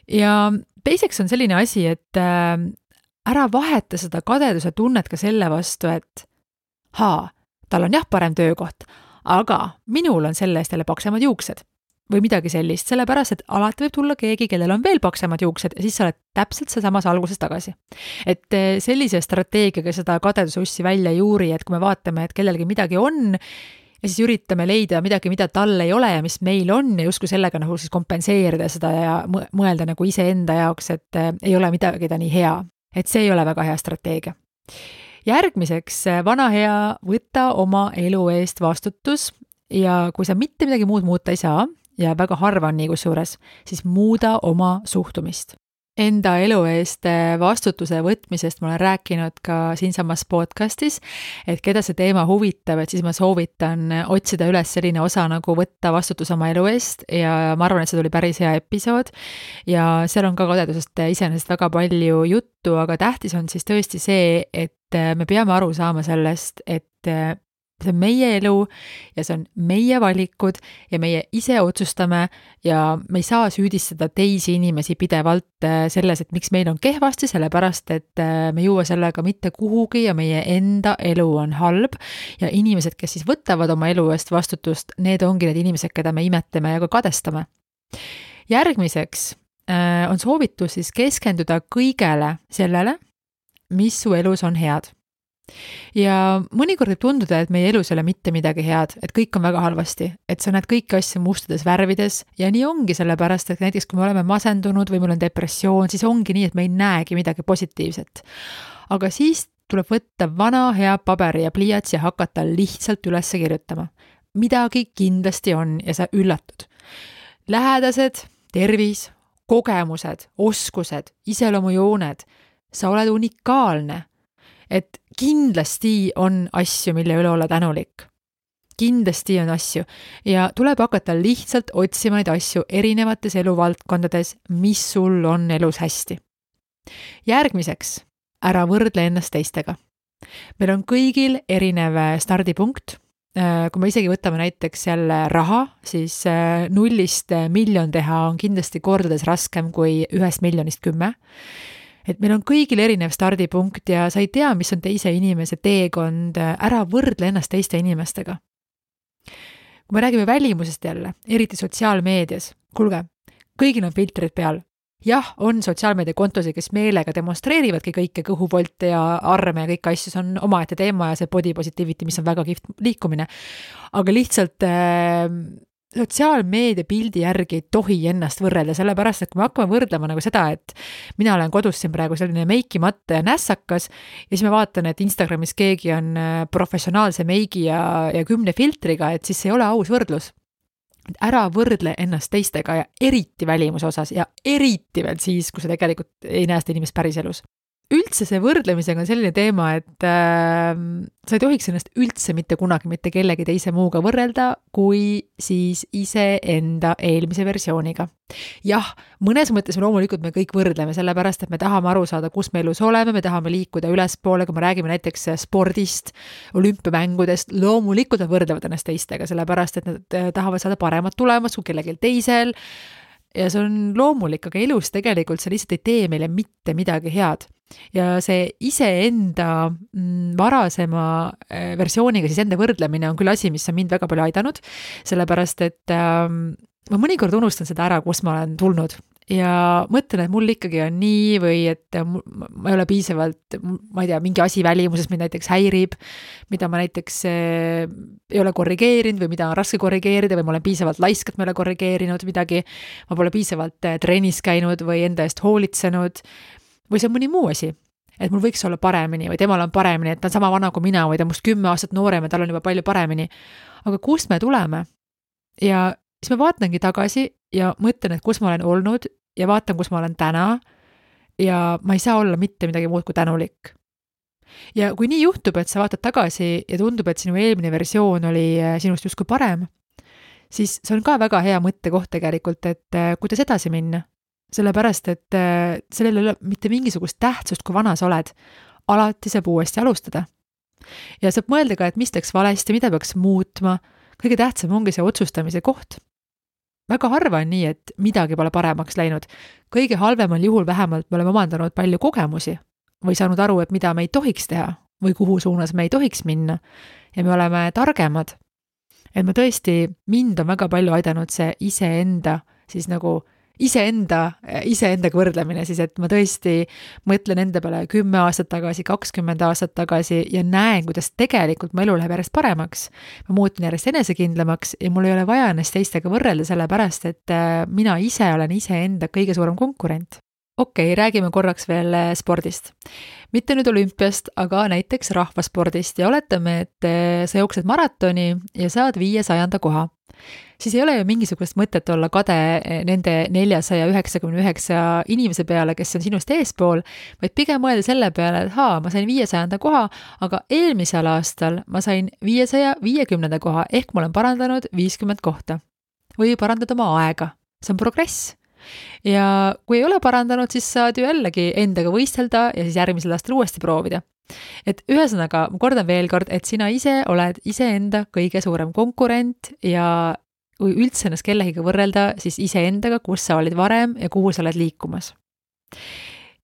Ja teiseks on selline asi, et ära vaheta seda kadeduse tunnet ka selle vastu, et tal on jah parem töökoht, aga minul on selle eest jälle paksemad juuksed või midagi sellist, sellepärast, et alati võib tulla keegi, kellel on veel paksemad juuksed ja siis sa oled täpselt seesamas alguses tagasi. Et sellise strateegiaga seda kadeduse ussi välja ei juuri, et kui me vaatame, et kellelgi midagi on ja siis üritame leida midagi, mida tal ei ole ja mis meil on ja justkui sellega nagu siis kompenseerida seda ja mõelda nagu iseenda jaoks, et ei ole midagi ta nii hea. Et see ei ole väga hea strateegia. Järgmiseks, vana hea, võta oma elu eest vastutus ja kui sa mitte midagi muud muuta ei saa, ja väga harva on nii kusjuures, siis muuda oma suhtumist. Enda elu eest vastutuse võtmisest ma olen rääkinud ka siinsamas podcastis, et keda see teema huvitab, et siis ma soovitan otsida üles selline osa nagu võtta vastutus oma elu eest ja ma arvan, et see tuli päris hea episood ja seal on ka kadedusest iseenesest väga palju juttu, aga tähtis on siis tõesti see, et me peame aru saama sellest, et see on meie elu ja see on meie valikud ja meie ise otsustame ja me ei saa süüdistada teisi inimesi pidevalt selles, et miks meil on kehvasti, sellepärast, et me ei jõua sellega mitte kuhugi ja meie enda elu on halb ja inimesed, kes siis võtavad oma elu eest vastutust, need ongi need inimesed, keda me imetleme ja ka kadestame. Järgmiseks on soovitus siis keskenduda kõigele sellele, mis su elus on head. Ja mõnikord võib tunduda, et meie elus ei ole mitte midagi head, et kõik on väga halvasti, et sa näed kõiki asju mustades värvides ja nii ongi sellepärast, et näiteks kui me oleme masendunud või meil on depressioon, siis ongi nii, et me ei näegi midagi positiivset. Aga siis tuleb võtta vana hea paberi ja pliiats ja hakata lihtsalt üles kirjutama. Midagi kindlasti on ja sa üllatud. Lähedased, tervis, kogemused, oskused, iseloomujooned, sa oled unikaalne. Et kindlasti on asju, mille üle olla tänulik. Kindlasti on asju ja tuleb hakata lihtsalt otsima neid asju erinevates eluvaldkondades, mis sul on elus hästi. Järgmiseks, ära võrdle ennast teistega. Meil on kõigil erinev stardipunkt. Kui me isegi võtame näiteks jälle raha, siis 0-st miljon teha on kindlasti kordades raskem kui 1 miljonist 10. Et meil on kõigil erinev stardipunkt ja sa ei tea, mis on teise inimese teekond, ära võrdle ennast teiste inimestega. Kui me räägime välimusest jälle, eriti sotsiaalmeedias, kuulge, kõigil on filtrid peal. Jah, on sotsiaalmeedia kontosid, kes meelega demonstreerivadki kõike kõhuvolte ja arme ja kõik asju, see on omaette teema ja see body positivity, mis on väga kihvt liikumine. Aga lihtsalt sotsiaalmeedia pildi järgi ei tohi ennast võrrelda, sellepärast, et kui me hakkame võrdlema nagu seda, et mina olen kodus siin praegu selline meikimatta ja nässakas ja siis ma vaatan, et Instagramis keegi on professionaalse meigi ja 10 filtriga, et siis ei ole aus võrdlus. Ära võrdle ennast teistega ja eriti välimuse osas ja eriti veel siis, kui sa tegelikult ei näe seda inimest päris elus. Üldse see võrdlemisega on selline teema, et sa ei tohiks ennast üldse mitte kunagi mitte kellegi teise muuga võrrelda, kui siis ise enda eelmise versiooniga. Jah, mõnes mõttes loomulikult me kõik võrdleme, sellepärast, et me tahame aru saada, kus me elus oleme, me tahame liikuda ülespoole, kui me räägime näiteks spordist, olümpiamängudest, loomulikult nad võrdlevad ennast teistega, sellepärast, et nad tahavad saada paremat tulemust kui kellelgi teisel ja see on loomulik, aga elus tegelikult see lihtsalt ei tee meile mitte midagi head. Ja see iseenda varasema versiooniga siis enda võrdlemine on küll asi, mis on mind väga palju aidanud, sellepärast, et ma mõnikord unustan seda ära, kus ma olen tulnud ja mõtlen, et mul ikkagi on nii või et ma ei ole piisavalt, ma ei tea, mingi asi välimuses mind näiteks häirib, mida ma näiteks ei ole korrigeerinud või mida on raske korrigeerida või ma olen piisavalt laisk, et ma ei ole korrigeerinud midagi, ma pole piisavalt trennis käinud või enda eest hoolitsenud või see on mõni muu asi, et mul võiks olla paremini või temal on paremini, et ta on sama vana kui mina või ta on must 10 aastat noorem ja tal on juba palju paremini. Aga kust me tuleme? Ja siis ma vaatangi tagasi ja mõtlen, et kus ma olen olnud ja vaatan, kus ma olen täna ja ma ei saa olla mitte midagi muud kui tänulik. Ja kui nii juhtub, et sa vaatad tagasi ja tundub, et sinu eelmine versioon oli sinust justkui parem, siis see on ka väga hea mõttekoht tegelikult, et kuidas edasi minna. Sellepärast, et sellel ei ole mitte mingisugust tähtsust, kui vana sa oled. Alati saab uuesti alustada. Ja saab mõelda ka, et mis läks valesti, mida peaks muutma. Kõige tähtsam ongi see otsustamise koht. Väga harva on nii, et midagi pole paremaks läinud. Kõige halvemal juhul vähemalt me oleme omandanud palju kogemusi või saanud aru, et mida me ei tohiks teha või kuhu suunas me ei tohiks minna. Ja me oleme targemad. Et ma tõesti, mind on väga palju aidanud see iseendaga võrdlemine siis, et ma tõesti mõtlen enda peale 10 aastat tagasi, 20 aastat tagasi ja näen, kuidas tegelikult mu elu läheb järjest paremaks. Ma muutun järjest enesekindlamaks ja mul ei ole vaja ennast teistega võrrelda sellepärast, et mina ise olen iseenda kõige suurem konkurent. Okei, räägime korraks veel spordist. Mitte nüüd olümpiast, aga näiteks rahvaspordist ja oletame, et sa jooksed maratoni ja saad 500. koha. Siis ei ole ju mingisugust mõtet olla kade nende 499 inimese peale, kes on sinust eespool, vaid pigem mõelda selle peale, et ma sain 500. koha, aga eelmisel aastal ma sain 550. koha, ehk ma olen parandanud 50 kohta. Või parandada oma aega. See on progress. Ja kui ei ole parandanud, siis saad ju jällegi endaga võistelda ja siis järgmisel aastal uuesti proovida. Et ühesõnaga, ma kordan veel kord, et sina ise oled iseenda kõige suurem konkurent ja kui üldse ennast kellegiga võrrelda, siis iseendaga, kus sa olid varem ja kuhu sa oled liikumas.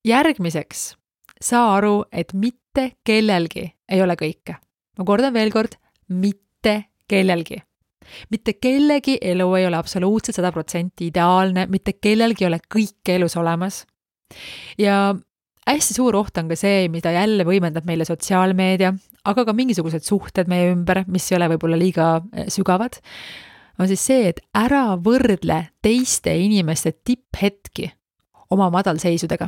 Järgmiseks, saa aru, et mitte kellelgi ei ole kõike. Ma kordan veel kord, mitte kellelgi. Mitte kellegi elu ei ole absoluutselt 100% ideaalne, mitte kellelgi ei ole kõike elus olemas. Ja hästi suur oht on ka see, mida jälle võimendab meile sotsiaalmeedia, aga ka mingisugused suhted meie ümber, mis ei ole võib-olla liiga sügavad, on siis see, et ära võrdle teiste inimeste tipphetki oma madalseisudega.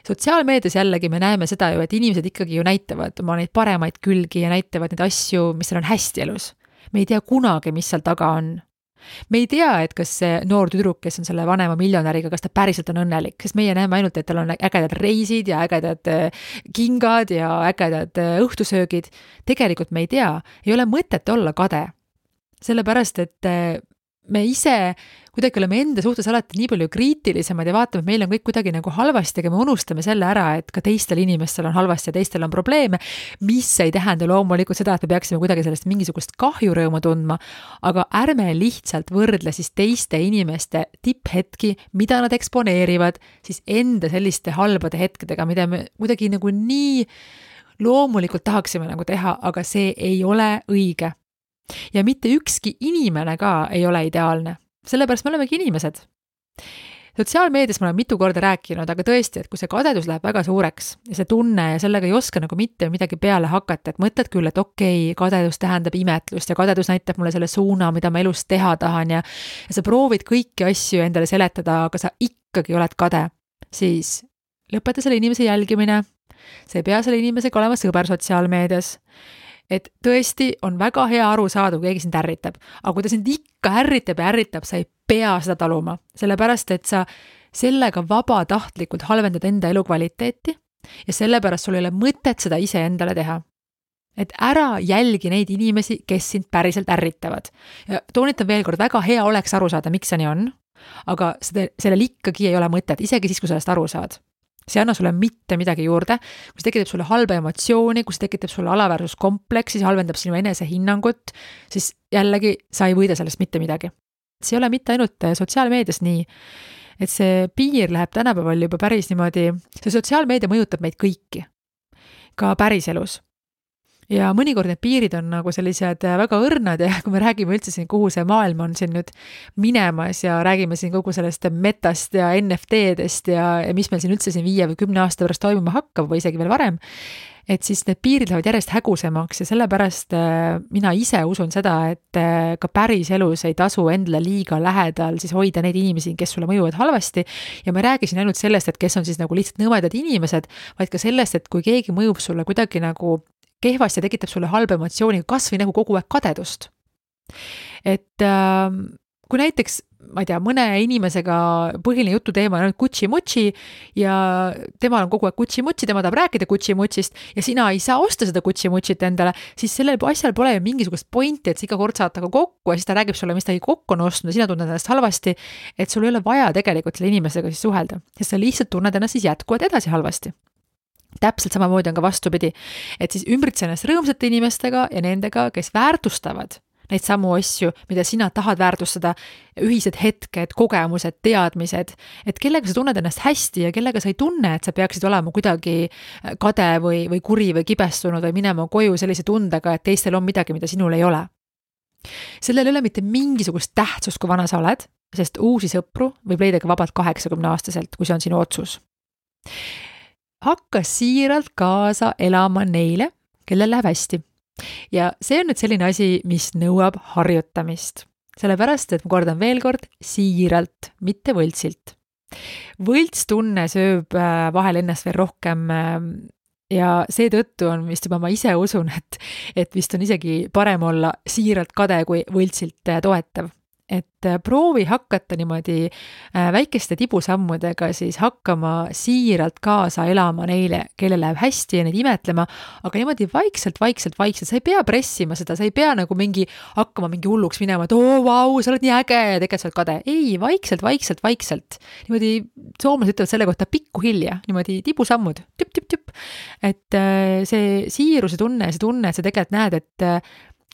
Sotsiaalmeedias jällegi me näeme seda ju, et inimesed ikkagi ju näitavad oma neid paremaid külgi ja näitavad neid asju, mis on hästi elus. Me ei tea kunagi, mis seal taga on. Me ei tea, et kas see noor tüdruk, kes on selle vanema miljonäriga, kas ta päriselt on õnnelik, sest meie näeme ainult, et tal on ägedad reisid ja ägedad kingad ja ägedad õhtusöögid. Tegelikult me ei tea, ei ole mõtet olla kade. Sellepärast, et me ise kuidagi oleme enda suhtes alati nii palju kriitilisemad ja vaatame, et meil on kõik kuidagi nagu halvasti, aga me unustame selle ära, et ka teistel inimestel on halvasti ja teistel on probleeme, mis ei tähenda loomulikult seda, et me peaksime kuidagi sellest mingisugust kahjurõõmu tundma, aga ärme lihtsalt võrdle siis teiste inimeste tipphetki, mida nad eksponeerivad, siis enda selliste halbade hetkedega, mida me kuidagi nagu nii loomulikult tahaksime nagu teha, aga see ei ole õige. Ja mitte ükski inimene ka ei ole ideaalne. Sellepärast me olemegi inimesed. Sotsiaalmeedias ma olen mitu korda rääkinud, aga tõesti, et kui see kadedus läheb väga suureks ja see tunne ja sellega ei oska nagu mitte midagi peale hakata, et mõtled küll, et okei, kadedus tähendab imetlust ja kadedus näitab mulle selle suuna, mida ma elus teha tahan ja sa proovid kõiki asju endale seletada, aga sa ikkagi oled kade, siis lõpeta selle inimese jälgimine. Sa ei pea selle inimesega olema sõber sotsiaalmeedias. Et tõesti on väga hea aru saada, kui keegi sind ärritab. Aga kui ta sind ikka ärritab, sa ei pea seda taluma. Sellepärast, et sa sellega vabatahtlikult halvendad enda elukvaliteeti ja sellepärast sul ei ole mõtet seda ise endale teha. Et ära jälgi neid inimesi, kes sind päriselt ärritavad. Ja toonitan veel kord, väga hea oleks aru saada, miks see nii on, aga sellel ikkagi ei ole mõtet, isegi siis, kui sellest aru saad. See anna sulle mitte midagi juurde, kui see tekitab sulle halba emotsiooni, kui see tekitab sulle alaväärsuskompleksi, see halvendab sinu enesehinnangut, siis jällegi sa ei võida sellest mitte midagi. See ei ole mitte ainult sotsiaalmeedias nii, et see piir läheb tänapäeval juba päris niimoodi, see sotsiaalmeedia mõjutab meid kõiki, ka päriselus. Ja mõnikord need piirid on nagu sellised väga õrnad ja kui me räägime üldse siin, kuhu see maailm on siin nüüd minemas ja räägime siin kogu sellest metast ja NFT-dest ja mis meil siin üldse siin 5 või 10 aasta pärast toimuma hakkab või isegi veel varem, et siis need piirid lähevad järjest hägusemaks ja sellepärast mina ise usun seda, et ka päris elus ei tasu endale liiga lähedal siis hoida neid inimesi, kes sulle mõjuvad halvasti ja ma räägin siin ainult sellest, et kes on siis nagu lihtsalt nõmedad inimesed, vaid ka sellest, et kui keegi mõjub sulle kuidagi nagu kehvasti ja tekitab sulle halba emotsiooni, kas või nagu kogu aeg kadedust. Et kui näiteks, ma ei tea, mõne inimesega põhiline jututeema on kutši-mutši ja temal on kogu aeg kutši-mutši, tema tahab rääkida kutši-mutšist ja sina ei saa osta seda kutši-mutšit endale, siis sellel asjal pole ju mingisugust pointi, et sa iga kord saad taga kokku ja siis ta räägib sulle, mis ta kokku on ostnud ja sina tunned ennast halvasti, et sul ei ole vaja tegelikult selle inimesega siis suhelda, sest sa lihtsalt tunned ennast siis jätkuvalt edasi halvasti. Täpselt samamoodi on ka vastupidi, et siis ümbritse ennast rõõmsate inimestega ja nendega, kes väärtustavad neid samu asju, mida sina tahad väärtustada, ühised hetked, kogemused, teadmised, et kellega sa tunned ennast hästi ja kellega sa ei tunne, et sa peaksid olema kuidagi kade või kuri või kibestunud või minema koju sellise tundega, et teistel on midagi, mida sinul ei ole. Sellel ei ole mitte mingisugust tähtsust, kui vana sa oled, sest uusi sõpru võib leida ka vabalt 80-aastaselt, kui see on sinu otsus. Hakka siiralt kaasa elama neile, kellel läheb hästi. Ja see on nüüd selline asi, mis nõuab harjutamist. Sellepärast, et ma kordan veel kord, siiralt, mitte võltsilt. Võltstunne sööb vahel ennast veel rohkem ja seetõttu on vist juba ma ise usun, et vist on isegi parem olla siiralt kade kui võltsilt toetav. Et proovi hakata niimoodi väikeste tibusammudega siis hakkama siiralt kaasa elama neile, kellel läheb hästi ja neid imetlema, aga niimoodi vaikselt, sa ei pea pressima seda, sa ei pea nagu hakkama mingi hulluks minema, et vau, sa oled nii äge ja tegelikult sa oled kade. Ei, vaikselt. Niimoodi soomlased ütlevad selle kohta pikku hilja, niimoodi tibusammud, tüp. Et see siiruse tunne, et sa tegelikult näed, et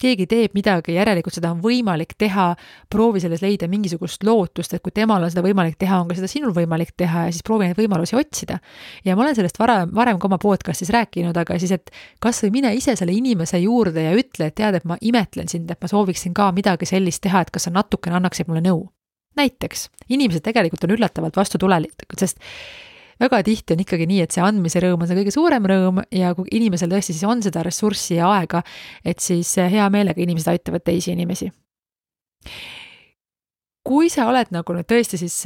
keegi teeb midagi, järelikult seda on võimalik teha, proovi selles leida mingisugust lootust, et kui temal on seda võimalik teha, on ka seda sinul võimalik teha ja siis proovi neid võimalusi otsida. Ja ma olen sellest varem ka oma podcastis rääkinud, aga siis, et kas või mine ise selle inimese juurde ja ütle, et tead, et ma imetlen sind, et ma sooviksin ka midagi sellist teha, et kas sa natukene annaksid mulle nõu. Näiteks, inimesed tegelikult on üllatavalt vastutulelikud, sest väga tihti on ikkagi nii, et see andmise rõõm on see kõige suurem rõõm ja kui inimesel tõesti siis on seda ressurssi ja aega, et siis hea meelega inimesed aitavad teisi inimesi. Kui sa oled nagu nüüd tõesti siis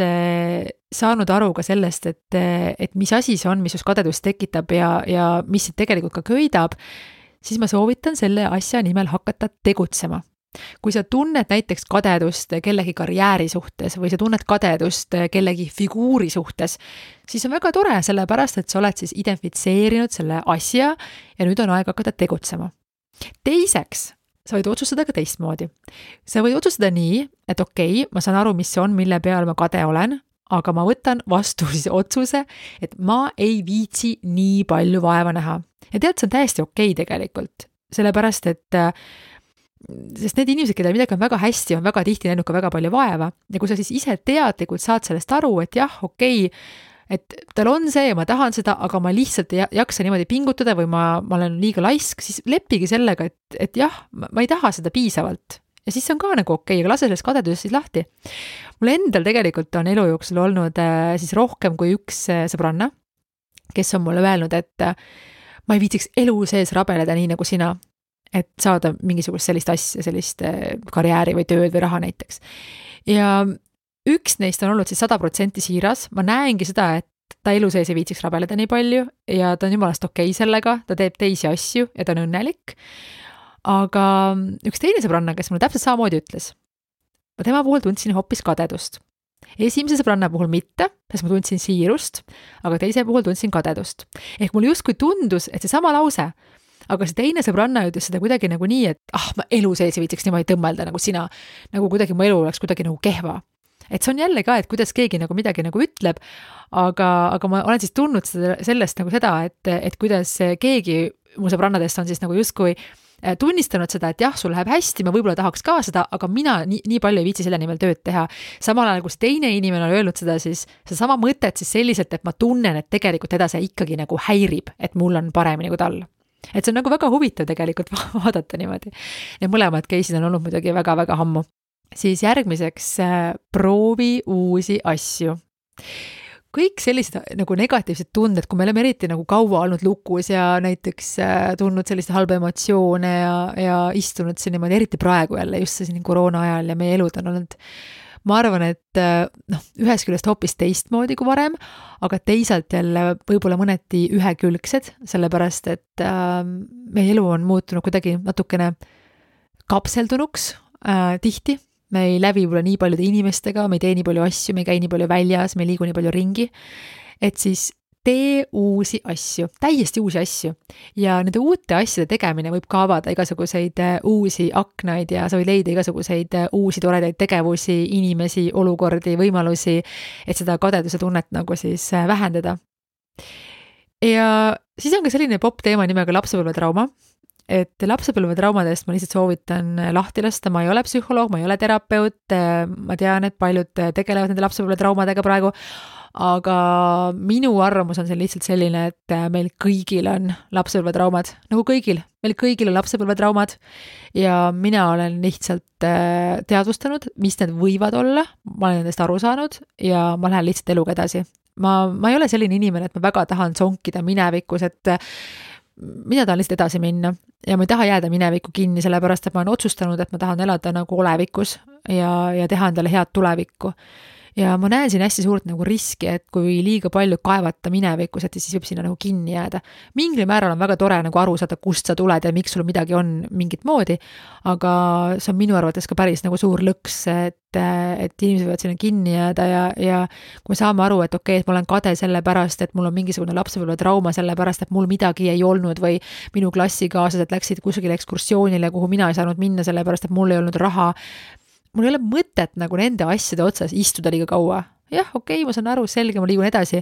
saanud aru ka sellest, et mis asi see on, mis just kadedust tekitab ja mis tegelikult ka köidab, siis ma soovitan selle asja nimel hakata tegutsema. Kui sa tunned näiteks kadedust kellegi karjääri suhtes või sa tunned kadedust kellegi figuuri suhtes, siis on väga tore, sellepärast, et sa oled siis identifitseerinud selle asja ja nüüd on aeg hakata tegutsema. Teiseks, sa võid otsustada ka teistmoodi. Sa võid otsustada nii, et okei, ma saan aru, mis see on, mille peal ma kade olen, aga ma võtan vastu siis otsuse, et ma ei viitsi nii palju vaeva näha. Ja tead, see on täiesti okei tegelikult, sellepärast, et sest need inimesed, keda midagi on väga hästi, on väga tihti näinud ka väga palju vaeva ja kui sa siis ise teadlikult saad sellest aru, et jah, okei, et tal on see ja ma tahan seda, aga ma lihtsalt ei jaksa niimoodi pingutada või ma olen liiga laisk, siis leppigi sellega, et jah, ma ei taha seda piisavalt ja siis on ka nagu okei, aga lase sellest kadedusest siis lahti. Mul endal tegelikult on elu jooksul olnud siis rohkem kui üks sõbranna, kes on mulle öelnud, et ma ei viitsiks elu sees rabeleda nii nagu sina, et saada mingisugust sellist asja, sellist karjääri või tööd või raha näiteks. Ja üks neist on olnud siis 100% siiras, ma näengi seda, et ta elu sees ei viitsiks rabeleda nii palju ja ta on jumalast okei sellega, ta teeb teisi asju ja ta on õnnelik. Aga üks teine sõbranna, kes mulle täpselt samamoodi ütles, ma tema puhul tundsin hoopis kadedust. Esimese sõbranna puhul mitte, sest ma tundsin siirust, aga teise puhul tundsin kadedust. Ehk mul justkui tundus, et see sama lause, aga see teine sõbranna ütles seda kuidagi nagu nii, et ma elu sees ei viitsiks niimoodi tõmmelda nagu sina, nagu kuidagi mu elu oleks kuidagi nagu kehva. Et see on jälle ka, et kuidas keegi nagu midagi nagu ütleb, aga ma olen siis tundnud sellest nagu seda, et kuidas keegi mu sõbrannadest on siis nagu justkui tunnistanud seda, et jah, sul läheb hästi, ma võib-olla tahaks ka seda, aga mina nii palju ei viitsi selle nimel tööd teha. Samal ajal, kus teine inimene on öelnud seda, siis see sama mõtet siis selliselt, et ma tunnen, et tegelikult teda see ikkagi nagu häirib, et mul on paremini kui tal. Et see on nagu väga huvitav tegelikult vaadata niimoodi. Ja mõlemad case'id on olnud muidugi väga-väga ammu. Siis järgmiseks proovi uusi asju. Kõik sellised nagu negatiivsed tunded, kui me oleme eriti nagu kaua olnud lukus ja näiteks tundnud sellist halba emotsioone ja istunud siin niimoodi, eriti praegu jälle just siin koroona ajal ja meie elud on olnud, ma arvan, et ühest küljest hoopis teistmoodi kui varem, aga teisalt jälle võib-olla mõneti ühekülgsed, sellepärast, et meie elu on muutunud kuidagi natukene kapseldunuks tihti me ei läbi võib-olla nii paljude inimestega, me ei tee nii palju asju, me ei käi nii palju väljas, me ei liigu nii palju ringi, et siis tee uusi asju, täiesti uusi asju ja nende uute asjade tegemine võib ka avada igasuguseid uusi aknaid ja sa võid leida igasuguseid uusi toredaid tegevusi, inimesi, olukordi, võimalusi, et seda kadeduse tunnet nagu siis vähendada. Ja siis on ka selline popp teema nimega lapsepõlvetrauma, et lapsepõlvetraumadest ma lihtsalt soovitan lahti lasta, ma ei ole psühholoog, ma ei ole terapeut, ma tean, et paljud tegelevad nende lapsepõlvetraumadega praegu, aga minu arvamus on see lihtsalt selline, et meil kõigil on lapsepõlvetraumad, nagu kõigil, meil kõigil on lapsepõlvetraumad ja mina olen lihtsalt teadvustanud, mis need võivad olla, ma olen nendest aru saanud ja ma lähen lihtsalt eluga edasi. Ma ei ole selline inimene, et ma väga tahan sonkida minevikus, et mina tahan lihtsalt edasi minna ja ma ei taha jääda minevikku kinni, sellepärast, et ma olen otsustanud, et ma tahan elada nagu olevikus ja teha endale head tulevikku. Ja ma näen siin hästi suurt nagu riski, et kui liiga palju kaevata minevikus, et siis võib sinna nagu kinni jääda. Mingil määral on väga tore nagu aru saada, kust sa tuled ja miks sul midagi on mingit moodi, aga see on minu arvates ka päris nagu suur lõks, et inimesed võivad sinna kinni jääda ja kui me saame aru, et okei, et ma olen kade selle pärast, et mul on mingisugune lapsepõlvetrauma selle pärast, et mul midagi ei olnud või minu klassikaaslased läksid kusagile ekskursioonile, kuhu mina ei saanud minna selle pärast, et mul ei olnud raha. Mul ei ole mõtet nagu nende asjade otsas istuda liiga kaua. Jah, okei, ma saan aru, selge, ma liigun edasi,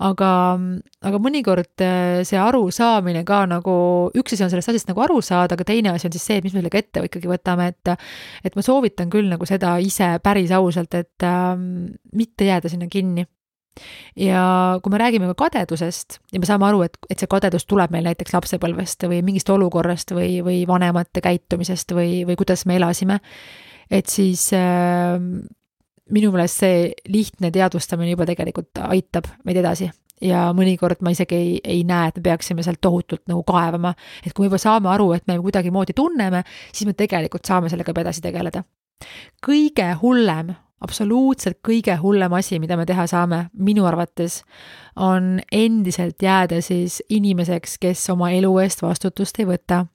aga mõnikord see aru saamine ka nagu, üks asi on sellest asjast nagu aru saada, aga teine asi on siis see, et mis me sellega ette ikkagi võtame, et ma soovitan küll nagu seda ise päris ausalt, et mitte jääda sinna kinni. Ja kui me räägime ka kadedusest ja me saame aru, et see kadedus tuleb meil näiteks lapsepõlvest või mingist olukorrast või vanemate käitumisest või kuidas me elasime, et siis minu meelest see lihtne teadvustamine juba tegelikult aitab meid edasi ja mõnikord ma isegi ei näe, et me peaksime sealt tohutult nagu kaevama, et kui me juba saame aru, et me kuidagi moodi tunneme, siis me tegelikult saame sellega edasi tegeleda. Kõige hullem, absoluutselt kõige hullem asi, mida me teha saame, minu arvates, on endiselt jääda siis inimeseks, kes oma elu eest vastutust ei võta.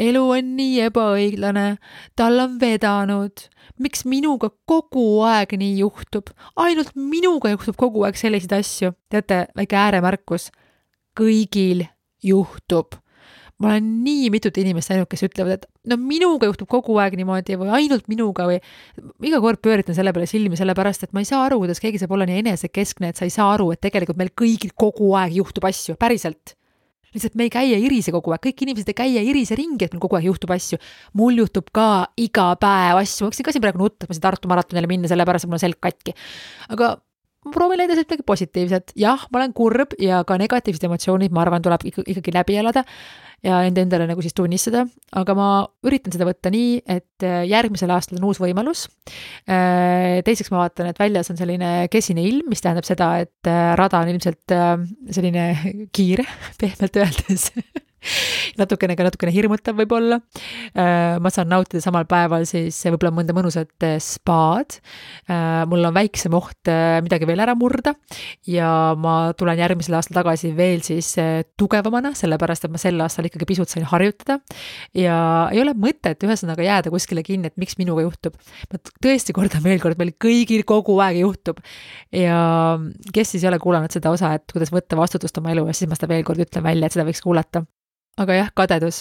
Elu on nii ebaõiglane, tal on vedanud, miks minuga kogu aeg nii juhtub, ainult minuga juhtub kogu aeg selliseid asju, teate, väike ääremärkus, kõigil juhtub. Ma olen nii mitut inimest näinud, kes ütlevad, et no minuga juhtub kogu aeg niimoodi või ainult minuga või iga kord pööritan selle peale silmi sellepärast, et ma ei saa aru, kuidas keegi saab olla nii enesekeskne, et sa ei saa aru, et tegelikult meil kõigil kogu aeg juhtub asju, päriselt. Lihtsalt me ei käi ja irise kogu aeg, kõik inimesed ei käi ja irise ringi, et meil kogu aeg juhtub asju. Mul juhtub ka iga päev asju, ma võiksin ka siin praegu nutta, et ma siin Tartu maratonile minna, sellepärast, et mul on selg katki. Aga ma proovin leida midagi positiivset. Jah, ma olen kurb ja ka negatiivsed emotsioonid, ma arvan, tuleb ikkagi läbi elada ja endale nagu siis tunnistada, aga ma üritan seda võtta nii, et järgmisel aastal on uus võimalus. Teiseks ma vaatan, et väljas on selline kesine ilm, mis tähendab seda, et rada on ilmselt selline kiire, pehmelt öeldes. natukene hirmutav võib-olla. Ma saan nautida samal päeval siis võib-olla mõnda mõnusat spaad. Mul on väiksem oht midagi veel ära murda ja ma tulen järgmisel aastal tagasi veel siis tugevamana, sellepärast, et ma sel aastal ikkagi pisut sain harjutada ja ei ole mõtet ühesõnaga jääda kuskile kinni, et miks minuga juhtub. Ma tõesti kordan veel kord, meil kõigil kogu aeg juhtub ja kes siis ei ole kuulanud seda osa, et kuidas võtta vastutust oma elu ja siis ma seda veel kord ütlen välja, et seda võiks kuulata. Aga jah, kadedus.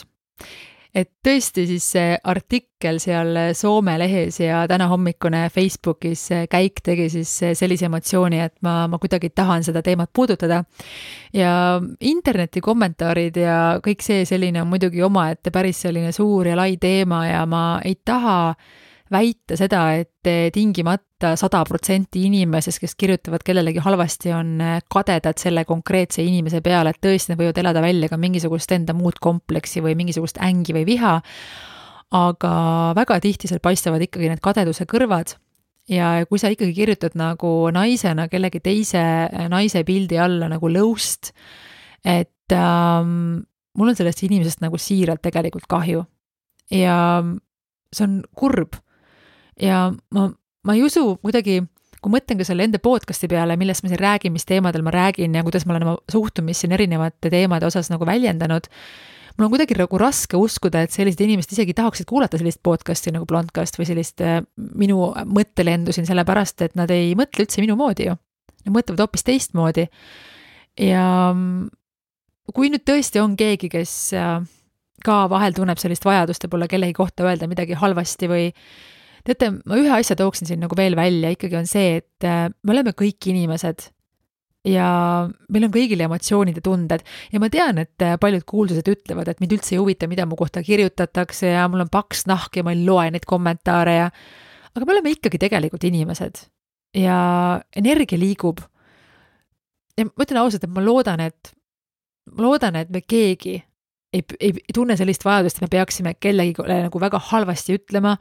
Et tõesti siis see artikkel seal Soome lehes ja täna hommikune Facebookis käik tegi siis sellise emotsiooni, et ma kuidagi tahan seda teemat puudutada. Ja interneti kommentaarid ja kõik see selline on muidugi omaette päris selline suur ja lai teema ja ma ei taha väita seda, et tingimata 100% inimesest, kes kirjutavad kellelegi halvasti, on kadedad selle konkreetse inimese peale, et tõesti nad võivad elada välja ka mingisugust enda muud kompleksi või mingisugust ängi või viha, aga väga tihti seal paistavad ikkagi need kadeduse kõrvad ja kui sa ikkagi kirjutad nagu naisena kellegi teise naise pildi alla nagu lõust, et mul on sellest inimesest nagu siiralt tegelikult kahju ja see on kurb. Ja ma ei usu kuidagi kui mõtlen ka selle enda podcasti peale, millest ma siin räägin, mis teemadel ma räägin ja kuidas ma olen oma suhtumist siin erinevate teemade osas nagu väljendanud, mul on kuidagi nagu raske uskuda, et sellised inimesed isegi tahaksid kuulata sellist podcasti nagu Blondcast või sellist minu mõttelendu siin, sellepärast, et nad ei mõtle üldse minu moodi ju. Nad mõtlevad hoopis teistmoodi. Ja kui nüüd tõesti on keegi, kes ka vahel tunneb sellist vajadust ja pole kellegi kohta öelda midagi halvasti või teate, ma ühe asja tooksin siin nagu veel välja, ikkagi on see, et me oleme kõik inimesed ja meil on kõigil emotsioonid ja tunded ja ma tean, et paljud kuulsused ütlevad, et mind üldse ei huvita, mida mu kohta kirjutatakse ja mul on paks nahk ja ma ei loe neid kommentaare aga me oleme ikkagi tegelikult inimesed ja energia liigub. Ja ma ütlen ausalt, et ma loodan, et me keegi ei tunne sellist vajadust, et me peaksime kellegi nagu väga halvasti ütlema,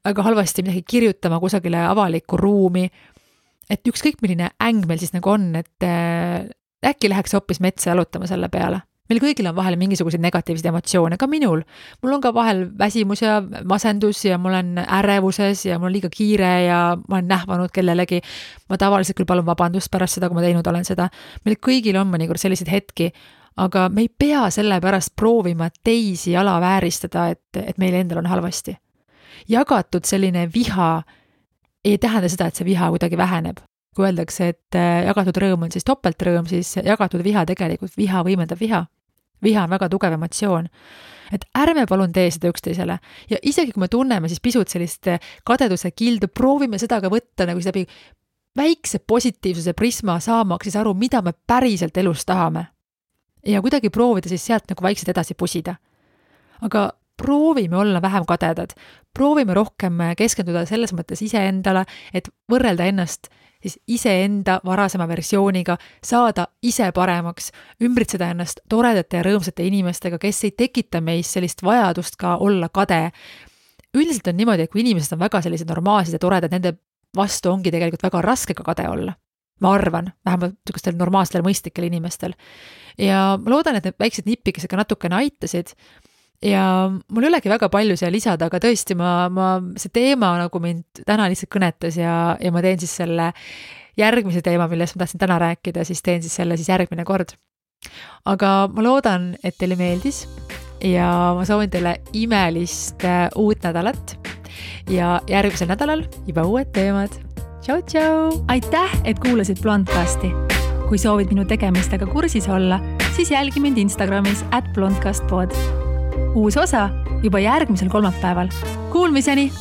väga halvasti midagi kirjutama kusagile avalikku ruumi, et ükskõik milline äng meil siis nagu on, et äkki läheks hoopis metsa jalutama selle peale. Meil kõigil on vahel mingisuguseid negatiivseid emotsioone, ka minul. Mul on ka vahel väsimus ja masendus ja mul on ärevuses ja mul on liiga kiire ja ma olen nähvanud kellelegi. Ma tavaliselt küll palun vabandust pärast seda, kui ma teinud olen seda. Meil kõigil on mõnikord selliseid hetki, aga me ei pea selle pärast proovima teisi alavääristada, et meil endal on halvasti. Jagatud selline viha ei tähenda seda, et see viha kuidagi väheneb. Kui öeldakse, et jagatud rõõm on siis topeltrõõm, siis jagatud viha tegelikult viha võimendab viha. Viha on väga tugev emotsioon. Et ärme palun tee seda üksteisele. Ja isegi kui me tunneme siis pisut sellist kadeduse kildu, proovime seda ka võtta nagu läbi väikse positiivsuse prisma saamaks siis aru, mida me päriselt elus tahame. Ja kuidagi proovida siis sealt nagu vaikselt edasi pusida. Aga proovime olla vähem kadedad, proovime rohkem keskenduda selles mõttes iseendale, et võrrelda ennast siis iseenda varasema versiooniga, saada ise paremaks, ümbritseda ennast toredate ja rõõmsate inimestega, kes ei tekita meis sellist vajadust ka olla kade. Üldiselt on niimoodi, et kui inimesed on väga sellised normaalsed ja toredad, nende vastu ongi tegelikult väga raske ka kade olla. Ma arvan, vähemalt niisugustel normaalsetel mõistlikel inimestel. Ja ma loodan, et need väiksed nipikesed ka natukene aitasid. Ja mul ei olegi väga palju siia lisada, aga tõesti see teema nagu mind täna lihtsalt kõnetas ja ma teen siis selle järgmise teema, millest ma tahtsin täna rääkida, siis teen siis selle siis järgmine kord. Aga ma loodan, et teile meeldis ja ma soovin teile imelist uut nädalat ja järgmisel nädalal juba uued teemad. Tšau, tšau! Aitäh, et kuulasid Blondcasti. Kui soovid minu tegemistega kursis olla, siis jälgi mind Instagramis @blondcastpod. Uus osa juba järgmisel kolmapäeval. Kuulmiseni!